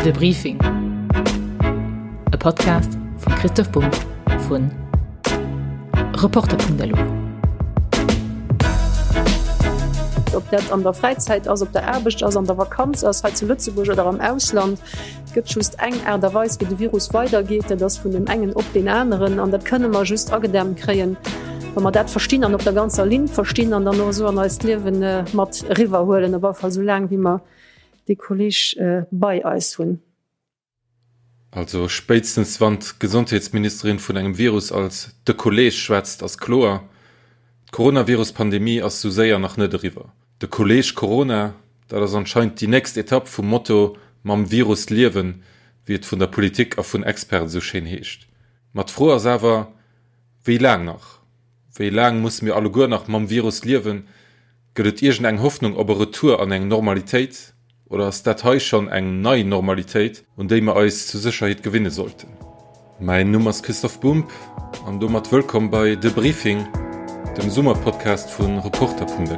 De Briefing, e Podcast vum Christoph Bumb vu Reporter.lu. Ob dat an der Fräizäit ass, op der Aarbecht ass, an der Vakanz ass, hei zu Lëtzebuerg oder am Ausland, et gëtt just eng Aart a Weis, wéi de Virus weidergeet, dat ass vun deem engen op deen aneren. An dat kënne mer just agedämmt kréien, wa mer dat verstinn an op der ganzer Linn verstinn an dann och esou an eist Liewe mat eriwwerhuelen, op alle Fall esou laang, wéi mer dee Kolleg bei eis hunn. Also spéitstens wann d'Gesondheetsministerin vun engem Virus als de Kolleg schwätzt, ass kloer, D'Coronavirus-Pandemie ass sou séier nach net eriwwer. De Kolleg Corona, dat ass anscheinend déi nächst Etapp vum Motto mam Virus liewen, wéi et vun der Politik a vun Experten sou schéin heescht. Ma d'Fro ass awer, Wéi laang nach? Wéi laang musse mir alleguer nach mam Virus liewen? Gëtt et iergend eng Hoffnung op e Retour an eng Normalitéit? Oder ass dat hei schonn eng nei Normalitéit, un déi mer eis zur Sécherheet gewinne sollten? Mäin Numm ass Christoph Bumb an domat wëllkomm bei De Briefing, dem Summerpodcast vu Reporter.lu.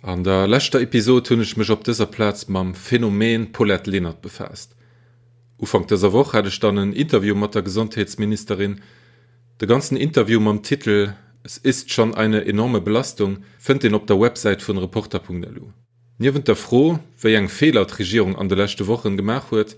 An der leschter Episod hunn ech mech op dëser Plaz mam Phänomen Paulette Lenert befaasst. Ufank dëser Woch hat ech dann en Interview mat der Gesondheetsministerin. De ganzen Interview mam Titel Es ist schon eine enorme Belastung fënnt een op der Websäit vun Reporter.lu. Niewent der Fro, wéi eng Feeler d'Regierung an de leschte Wochen gemaach huet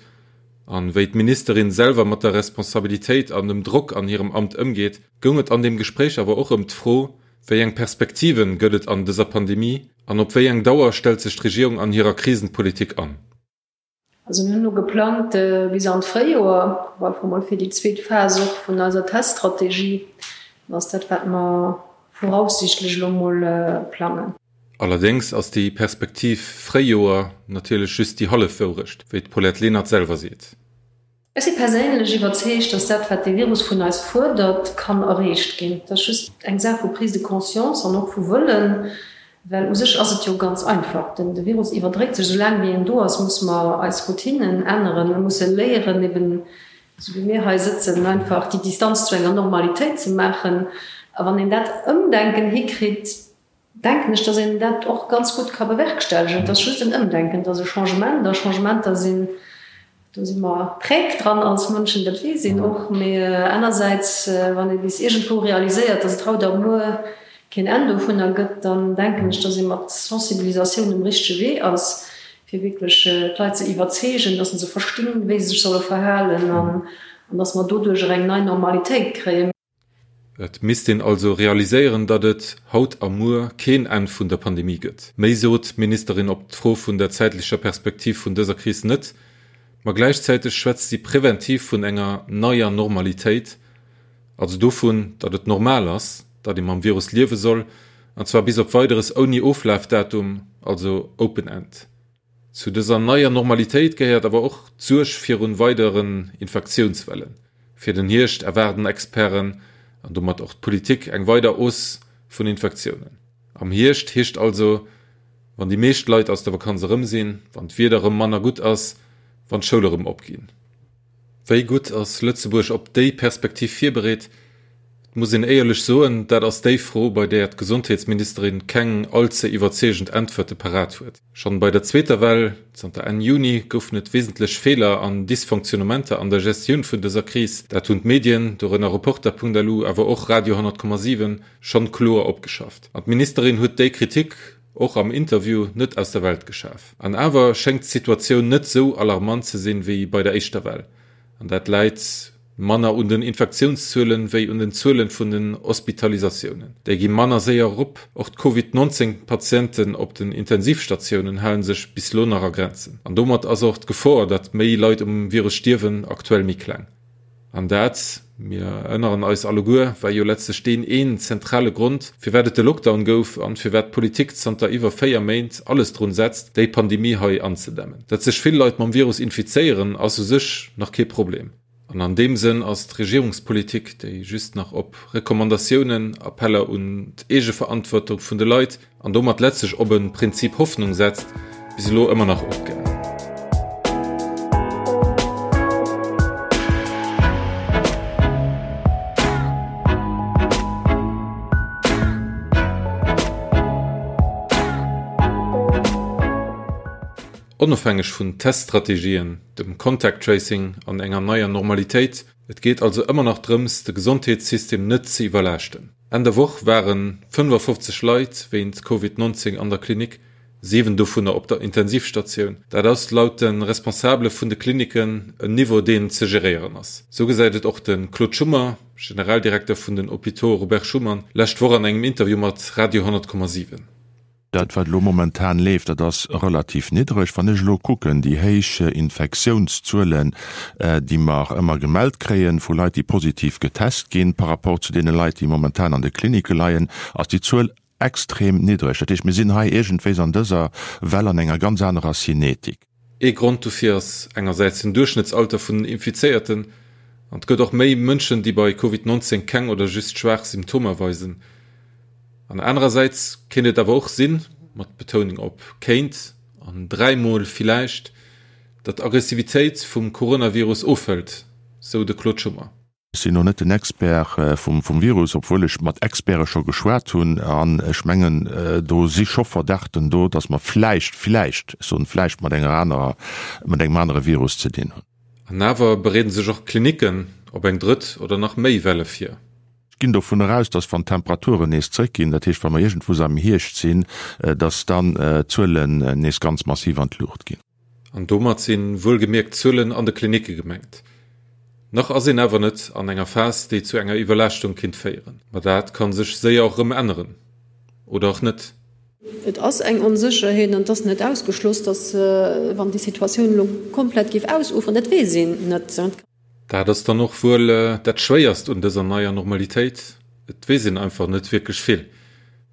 an wéi d'Ministerin selwer mat der Responsabilitéit an dem Drock an hirem Amt ëmgeet, goung et an deem Gespréich awer och ëm d'Fro, Wéi eng Perspektiven gëtt et an dëser Pandemie an op wéi eng Dauer stellt sech d'Regierung an hirer Krisenpolitik an? Also mir hunn elo geplangt bis an d'Fréijoer, op alle Fall mol fir déi zweet Phas och vun eiser Teststrategie. Dat ass dat, wat mer voraussichtlech elo mol plangen. Allerdéngs ass déi Perspektiv Fréijoer natierlech just déi hallef Wourecht, wéi d'Paulette Lenert selwer seet. Ech si perséinlech iwwerzeegt, dass dat, wat dee Virus vun eis fuerdert, kann erreecht ginn. Et ass just eng Saach vu Prise de conscience an och vu Wëllen, well u sech ass et jo ganz einfach. Den de Virus iwwerdréit sech. Soulaang wéi en do ass, musse mer eis Routinen änneren. Mir musse léieren, eben esou wéi mir hei sëtzen, einfach déi Distanz zu enger Normalitéit ze maachen. A wann een dat Ëmdenken hikritt, denken ech, dass een dat och ganz gutt ka bewerkstelligen. Et ass just en Ëmdenken, et ass e Changement a Changementer sinn, do si mer träg dran als Mënschen, dat weess een och. Mee anersäits, wann ee bis iergendwou realiséiert, dass et haut a muer keen Enn dovunner gëtt, dann denken ech, dass ee mat Sensibilisatioun um richtege Wee ass, fir wierklech d'Leit ze iwwerzeegen, dass se verstinn, wéi se sech solle verhalen an dass mer doduercher eng nei Normalitéit kréien. Et misst een also realiséieren, datt et haut a muer keen Enn vun der Pandemie gëtt. Méi sot d'Ministerin op d'Fro vun der zäitlecher Perspektiv vun dëser Kris net, ma gläichzäiteg schwätzt si preventiv vun enger neier Normalitéit, also dovun, datt et normal ass, datt ee mam Virus liewe soll, an zwar bis op Weideres ouni Oflafdatum, also open end. Zu dëser neier Normalitéit gehéiert awer och d'Suerg virun weideren Infektiounswellen. Fir den Hierscht erwaarden Experten, an domat och d'Politik, eng weider Hausse vun Infektiounen. Am Hierscht heescht also, wann déi meescht Leit aus der Vakanz erëm sinn, wann d'Wieder erëm manner gutt ass, wann d'Schoule erëm opginn. Wéi gutt ass Lëtzebuerg op déi Perspektiv virbereet? Et muss een éierlech soen, dat ass déi Fro, bei där d'Gesondheetsministerin keng all ze iwwerzeegend Äntwerte parat huet. Schonn bei der zweeter Well, zanter Enn Juni, goufen et wesentlech Feeler an Dysfonctionnementer an der Gestioun vun dëser Kris. Dat hunn d'Medien, dorënner Reporter.lu, awer och Radio 100,7, schonn kloer opgeschafft. An d'Ministerin huet déi Kritik och am Interview net aus der Welt geschaf. An awer schéngt d'Situatioun net sou alarmant ze sinn, wéi bei der éischter Well. An dat läit manner un den Infektiounszuelen, wéi un den Zuelen vun den Hospitalisatiounen. Déi gi manner séier erop. Och d'Covid 19 Patienten op den Intensivstatiounen hale sech bis lo nach a Grenzen. An domat ass och d'Gefor, datt méi Leit um Virus stierwen, aktuell méi kleng. An dat, mir erënneren eis alleguer, war jo letztlech deen een zentrale Grond, firwat et de Lockdown gouf an firwat d'Politik zanter iwwer 4 Méint alles drun setzt, déi Pandemie hei anzedämmen. Datt sech vill Leit mam Virus infizéieren, ass u sech nach kee Problem. An an deem Sënn ass d'Regierungspolitik, déi just nach op Recommandatiounen, Appeller un d'Eegeverantwortung vun de Leit an domat letztlech op e Prinzip Hoffnung setzt, bis elo ëmmer nach opgaang. Onofhängeg vun Teststrategien, dem Contact Tracing an enger neier Normalitéit. Et geet also ëmmer nach drëms, de Gesondheetssystem net ze iwwerlaaschten. Enn der Woch ware 55 Leit wéint Covid 19 an der Klinik, 7 dovunner op der Intensivstatioun. Dat ass laut de Responsabele vun de Klinicken en Niveau, deen ze geréieren ass. Sou gesäit et och de Claude Schummer, Generaldirekter vun den Hôpitaux Robert Schuman, lescht Woch an engem Interview mat Radio 10,7. Dat, wat elo momentan leeft, dat ass relativ niddreg. Wann ech elo kucken, déi héich Infektiounszuelen, déi mer ëmmer gemellt kréien vu Leit, déi positiv getest ginn, par rapport zu deene Leit, déi momentan an de Klinicke leien, ass déi Zuel extrem niddreg. Dat heescht, mir sinn hei iergendwéis an dëser Well an enger ganz anerer Cinetik. Ee Grond dofir ass engersäits den Duerchschnëttsalter vun den Infizéierten an et gëtt och méi Mënschen, déi bei Covid 19 keng oder just schwaach Symptomer weisen. An anerersäits kéint et awer och sinn, mat Betounung op kéint an dräimol villäicht, datt d'Aggressivitéit vum Coronavirus ofhëlt, sou de Claude Schummer. Ech sinn elo net den Expert vum Virus, obwuel ech mat Experte scho geschwat hunn. An ech mengen, do si scho Verdachten do, datt mer vläicht, vläicht, ech soen vläicht, mat enger anerer, mat engem anere Virus ze dinn hunn. An awer bereede sech och d'Klinicken op eng drëtt oder nach méi Welle vir. Ech ginn dovun eraus, datt wann d'Temperaturen nees zréckginn, dat heescht wa mer iergendwou am Hierscht sinn, datt dann d'Zuelen nees ganz massiv an d'Luucht ginn. An domat si wuelgemierkt d'Zuelen an de Klinicke gemengt. Nach ass een awer net an enger Phas, déi zu enger Iwwerlaaschtung kinnt féieren. Ma dat ka sech séier och erëm änneren. Oder och net. Et ass eng Onsécherheet an et ass net ausgeschloss, datt, wann déi Situatioun elo komplett géif ausuferen, dat weess een net. Dat ass dann och wuel dat Schwéierst un dëser neier Normalitéit, et weess een einfach net wierklech vill.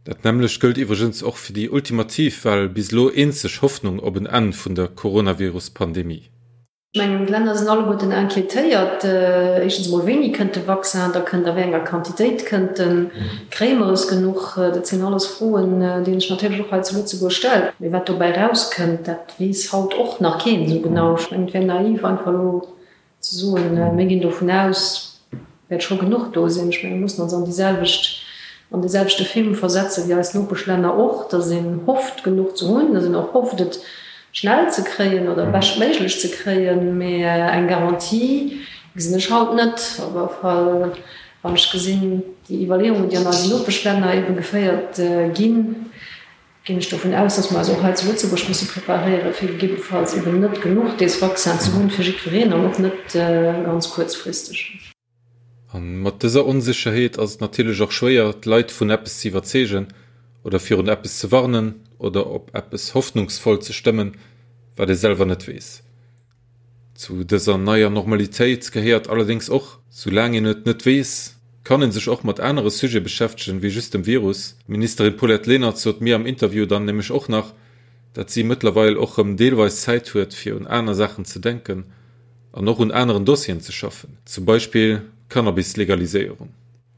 Dat nämmlecht gëllt iwwregens och fir déi ultimativ, well bis elo eenzeg Hoffnung op en Enn vun der Coronavirus-Pandemie. Ech mengen, d'Länner sinn alleguerten inquiétéiert, éischtens emol, wéini kënnt de Vaccin, da kënnt, a wéi enger Quantitéit kënnt en, kréie mer es genuch? Dat sinn alles Froen, déi een sech natierlech och hei zu Lëtzebuerg stellt. Mee wat dobäi erauskënnt, dat weess haut och nach keen esou genau. Ech mengen, et wär naiv, einfach elo Ze soen, mir ginn dovun aus, wäert scho genuch do sinn. Ech menge mir mussen ons an déi selwecht, an dee selwechte Film versetze wéi eis Nopeschlänner och, datt een hofft genuch ze hunn, datt een och hofft et schnell ze kréien oder beschtméiglech ze kréien. Mee eng Garantie gesinn ech haut net. Op alle Fall wann ech gesinn déi Iwwerleeungen, déi an eisen Nopeschlänner ebe geféiert ginn, Ginn ech dovun aus, dass mer eis och hei zu Lëtzebuerg musse preparéieren, fir gegebenfalls eben net genuch dees Vaccin ze hunn fir jiddwereen an och net ganz kuerzfristeg. A mat dëser Onsécherheet ass et natierlech och schwéier, d'Leit vun eppes ze iwwerzeegen oder virun eppes ze warnen oder op eppes hoffnungsvoll ze stëmmen, wat ee selwer net weess. Zu dëser neier Normalitéit gehéiert allerdéngs och, Soulaang een et net weess, kann ee sech och mat anere Sujete beschäftegen, wéi just dem Virus. D'Ministerin Paulette Lenert sot mir am Interview dann nämlech och nach, dat si mëttlerweil och rëm deelweis Zäit huet, fir un aner Saachen ze denken an och un aneren Dossieren ze schaffen, zum Beispill d'Cannabis-Legaliséierung.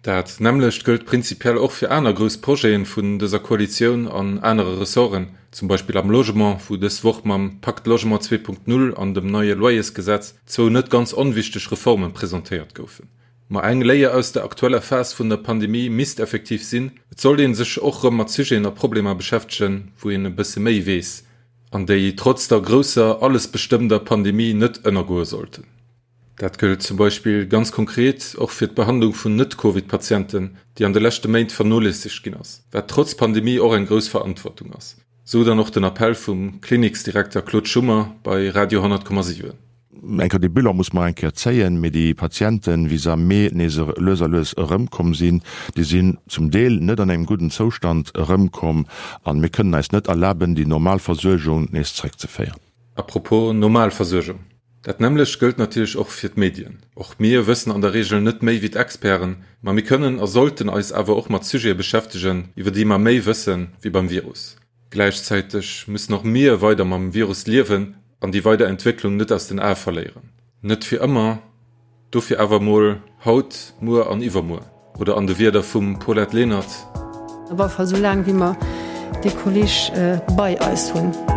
Dat nämmlecht gëllt prinzipiell och fir aner grouss Projete vun dëser Koalitioun an anere Ressorten, zum Beispill am Logement, wou dës Woch mam Pacte Logement 2.0 an dem neie Loyersgesetz zwou net ganz onwichteg Reforme presentéiert goufen. Ma eng Léier aus der aktueller Phas vun der Pandemie misst effektiv sinn, Et sollt ee sech och rëm mat Sujeten a Problemer beschäftegen, wou een e bësse méi weess an déi trotz der grousser, allesbestëmmender Pandemie net ënnergoe sollten. Dat gëllt zum Beispill ganz konkret och fir d'Behandlung vun Net-Covid-Patienten, déi an de leschte Méint vernoléissegt ginn ass, wat trotz Pandemie och eng grouss Verantwortung ass, sou dann och den Appell vum Kliniksdirekter Claude Schummer bei Radio 10,7. Eng Kéier, dee Bilan muss mer eng Kéier zéien, mee déi Patienten, wéi se am Mee nees lues a lues erëmkomm sinn, déi sinn zum Deel net an engem gudden Zoustand erëmkomm an mir kënnen eis net erlaben, déi normal Versuergung nees zréckzeféieren. A propos normal Versuergung, Dat nämmlecht gëllt natierlech och fir d'Medien. Och mir wëssen an der Reegel net méi wéi d'Experten, ma mir kënnen a sollten eis awer och mat Sujete beschäftegen, iwwer déi mer méi wësse wéi beim Virus. Gläichzäiteg müssen och mir weider mam Virus liewen an déi weider Entwécklung net aus den Ae verléieren. Net fir ëmmer, dofir awer mol haut, muer an iwwermuer. Oder an de Wierder vum Paulette Lenert. Op alle Fall esou laang, wéi mer dee Kolleg bei eis hunn.